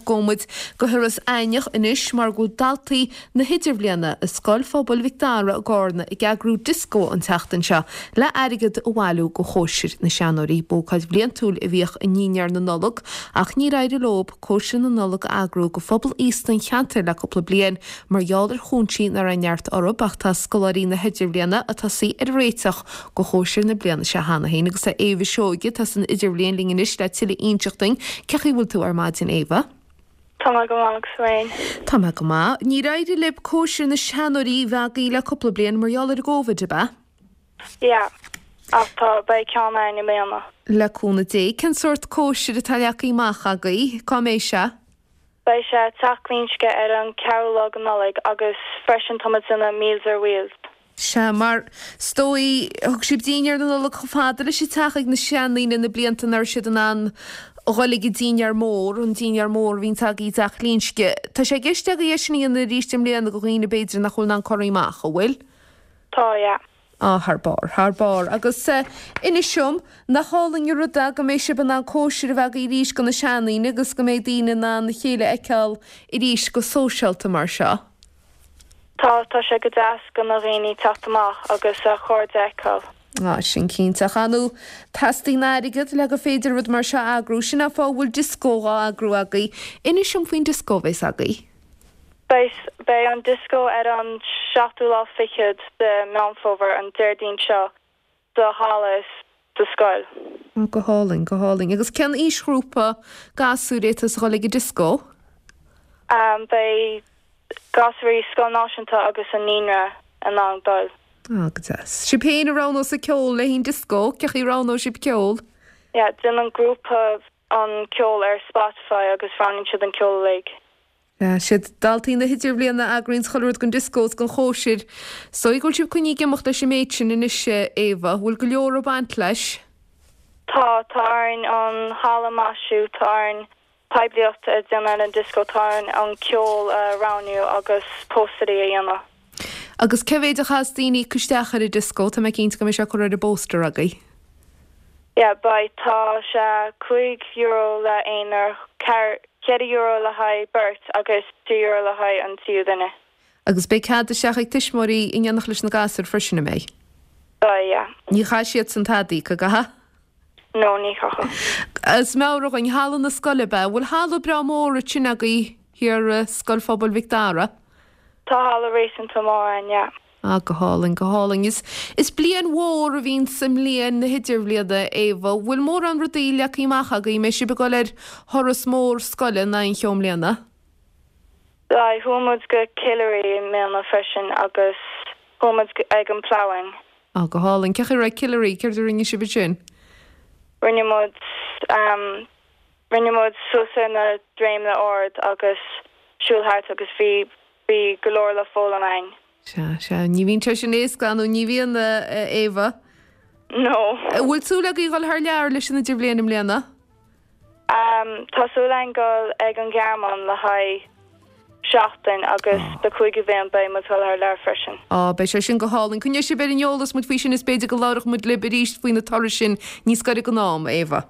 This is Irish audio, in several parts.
Gabhfaidh muid go hIorras Aithneach anois mar go bhfuil daltaí na hIdirbhliana i Scoil Phobail Mhic Dara i gCárna ag eagrú dioscó an tseachtain seo le airgead a bhailiú go chóisir na seanóirí. B'ócáid bhliantúil a bhíodh i ndinnéar na Nollag ach níor éirigh leo cóisir na Nollag a eagrú go phobal aosta an cheantair le cúpla bliain mar gheall ar chúinsí nach raibh neart orthu ach tá scoláirí na hIdirbhliana ag tosaí ar an réiteach go chóisir na bliana seo cheana féin agus tá Éabha Seoige atá san Idirbhliain linn anois le tuilleadh a inseacht dúinn. Cén chaoi a bhfuil tú ar maidin Éabha? Tá mé go maith agus tú féin? Tá mé go maith. Níor éirigh libh cóisir na seanóirí a bheith agaibh le cúpla bliain mar gheall ar an gCóivid, ab ea? Yeah. Ach tá, beidh ceann againn i mbliana. Le cúnamh Dé. Cén sórt cóisir atá leagtha amach agaibh? Cá mbeidh sé? Beidh sé i dTeach Glinsce ar an ceathrú lá de Nollaig agus freisin tá muid ag déanamh Meals ar Wheels. Sea, mar is dóigh, thug sibh dinnéar na Nollag chomh fada leis an teach ag na seandaoine na blianta nach raibh siad in ann a dhul ag an dinnéar mór, an dinnéar mór a bhíonns agaibh i dTeach Glinsce. Tá sé i gceist agaibh é sin a dhéanamh arís i mbliana do dhaoine b'fhéidir nach bhfuil in ann corraí amach, an bhfuil? Tá, yeah. Á, thar barr, thar barr. Agus inis dom, nach álainn an rud é go mbeidh sibh in ann cóisir a bheith agaibh arís do na seandaoine agus go mbeidh daoine in ann a chéile a fheiceáil arís go sóisialta mar seo? Tá, tá sé go deas do na dhaoine teacht amach agus a chairde a fheiceáil. Á, sin cinnte. Ach ar ndóigh, teastaíonn airgead le gur féidir rud mar seo a eagrú. Sin an fáth a bhfuil dioscó dhá eagrú agaibh. Inis dom faoin dioscó a bheas agaibh. Beidh, beidh an dioscó ar an seachtú lá fichead de Meán Fómhair, an Déardaoin seo, sa halla sa scoil. Ó, go hálainn, go hálainn. Agus cén aoisghrúpa gasúir atá ag dul ag an dioscó? Beidh gasúirí Scoil Náisiúnta agus an Naíonra in ann dul. Á, go deas. Sibh féin a roghnós an ceol le haghaidh an dioscó? Cén chaoi a roghnóidh sibh ceol? Yeah, déanann grúpa an ceol ar Spotify agus roghnaíonn siad an ceol uilig. Siad daltaí na hIdirbhliana a eagraíonns chuile rud don dioscó is don chóisir. Is dóigh go bhfuil sibh coinnithe ag imeacht leis an méid sin anois, a Éabha. Bhfuil go leor ag baint leis? Tá, tá orainn an halla a mhaisiú, tá orainn poiblíocht a dhéanamh ar an dioscó, tá orainn an ceol a roghnú agus póstairí a dhéanamh. Agus cé mhéid a chaithfeas daoine íoc isteach ar an dioscó? Tá mé cinnte go mbeidh sé curtha ar an bpóster agaibh. Yeah, beidh. Tá sé €5 le aonar, €4 le haghaidh beirt agus €3 le haghaidh an tríú duine. Agus beidh cead isteach ag tuismitheoirí in éineacht leis na gasúir freisin, an mbeidh? Beidh, yeah. Ní chaithfidh siadsan tada a íoc, an gcaithfidh? No, ní chaithfidh. Is meabhraigh dhúinn, halla na scoile, ab ea? An bhfuil halla breá mór ansin agaibh thiar i Scoil Phobail Mhic Dara? Tá halla réasúnta mór ann, yeah. Ah, go hálainn, go hálainn. Is, is bliain mhór a bhíonn sa mbliain na hidirbhliana, Éabha. Bhfuil mórán rudaí leagtha amach agaibh? Mbeidh sibh ag dul ar thuras mór scoile in aon cheo i mbliana? Beidh, chuaigh muid go Killary i mbliana freisin agus chuaigh muid ag an Ploughing. Ah, go hálainn. Cén chaoi a raibh Killary? Céard a rinne sibh ansin? Rinne muid, ehm, rinne muid suas ar na droimeanna ard agus siúl thart agus bhí, bhí go leor le foghlaim againn. Sea, sea. Ní bhíonn sé sin éasca, nó ní bhíonn, a Éabha? No. An bhfuil súil agaibh dhul thar lear leis an Idirbhliain i mbliana? Tá súil againn dul ag an Ghearmáin le haghaidh seachtain agus do cúigiú bhliain beidh muid dul thar lear freisin. Á, beidh sé sin go hálainn. Coinneoidh sibh ar an eolas muid faoi sin is b'fhéidir go labhróidh muid libh arís faoi na turais sin níos gaire don am, a Éabha.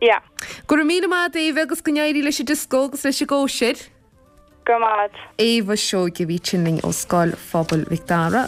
Yeah. Go raibh míle maith agat, a Éabha, agus go n-éirí leis an dioscó agus leis an gcóisir. Go raibh maith agat. Éabha Seoige a bhí ansin linn ó Scoil Phobail Mhic Dara.